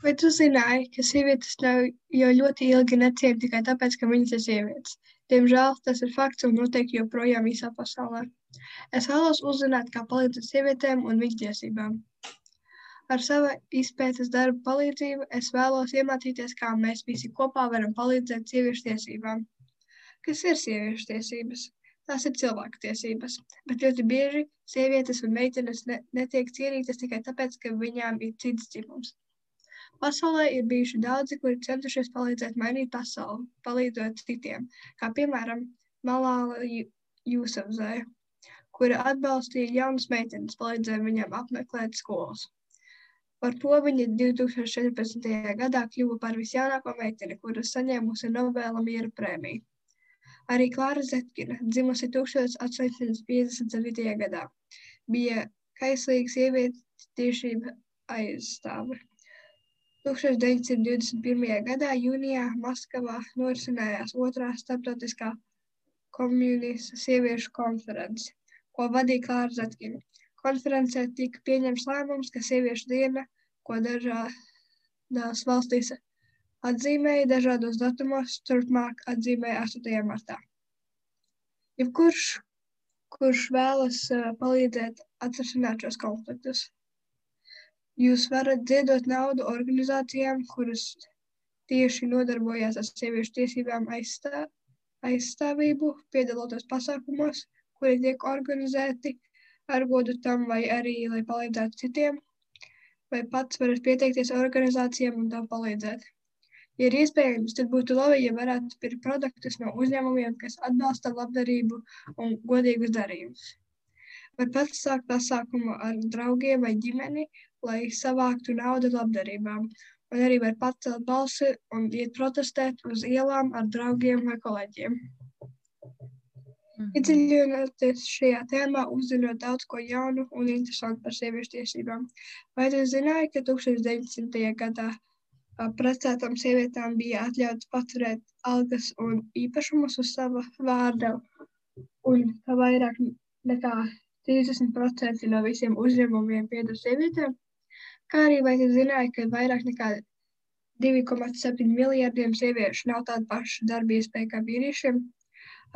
Vai tu zināji, ka sievietes nav jau ļoti ilgi neciena tikai tāpēc, ka viņas ir sievietes? Diemžēl tas ir fakts un noteikti joprojām visā pasaulē. Es vēlos uzzināt, kā palīdzēt sievietēm un viņu tiesībām. Ar savu izpētes darbu palīdzību es vēlos iemācīties, kā mēs visi kopā varam palīdzēt sieviešu tiesībām. Kas ir sieviešu tiesības? Tās ir cilvēku tiesības, bet ļoti bieži sievietes un meitenes netiek cienītas tikai tāpēc, ka viņām ir cits dzimums. Pasaulē ir bijuši daudzi, kuri centušies palīdzēt mainīt pasauli, palīdzot citiem, kā piemēram Malāla Jusafzai, kura atbalstīja jaunas meitenes, palīdzēja viņām apmeklēt skolas. Par to viņa 2014. gadā kļuva par visjaunāko meiteni, kura saņēmusi Nobela miera prēmiju. Arī Klāra Zetkina, dzimusi 1857. gadā, bija kaislīga sievietes tiesību aizstāve. 1921. gadā jūnijā Maskavā norisinājās otrā starptautiskā komunistu sieviešu konference, ko vadīja Klāra Zetkina. Konferencē tika pieņemts lēmums, ka sieviešu diena, ko dažādās valstīs atzīmēja dažādos datumos, turpmāk atzīmēja 8. martā. Kurš vēlas palīdzēt atrisināt šos konfliktus? Jūs varat ziedot naudu organizācijām, kuras tieši nodarbojās ar sieviešu tiesībām aizstāvību, piedaloties pasākumos, kuri tiek organizēti ar godu tam vai arī, lai palīdzētu citiem, vai pats varat pieteikties organizācijām un tam palīdzēt. Ja ir iespējams, tad būtu labi, ja varētu pirkt produktus no uzņēmumiem, kas atbalsta labdarību un godīgus darījumus. Var pats sākt pasākumu ar draugiem vai ģimeni, lai savāktu naudu labdarībām, un arī var pacelt balsi un iet protestēt uz ielām ar draugiem vai kolēģiem. Iedziļinoties šajā tēmā, uzzinot daudz ko jaunu un interesantu par sieviešu tiesībām. Vai tu zināji, ka 1900. gadā precētām sievietēm bija atļauts paturēt algas un īpašumus uz sava vārda, un ka vairāk nekā 30% no visiem uzņēmumiem pieder sievietēm? Kā arī vai tu zināji, ka vairāk nekā 2,7 miljardiem sieviešu nav tāda paša darba iespēja kā vīriešiem?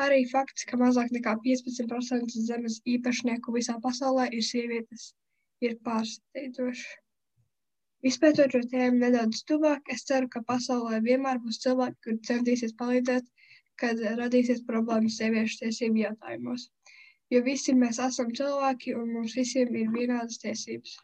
Arī fakts, ka mazāk nekā 15% zemes īpašnieku visā pasaulē ir sievietes, ir pārsteidzošs. Izpētot šo tēmu nedaudz tuvāk, es ceru, ka pasaulē vienmēr būs cilvēki, kuri centīsies palīdzēt, kad radīsies problēmas sieviešu tiesību jautājumos. Jo visi mēs esam cilvēki un mums visiem ir vienādas tiesības.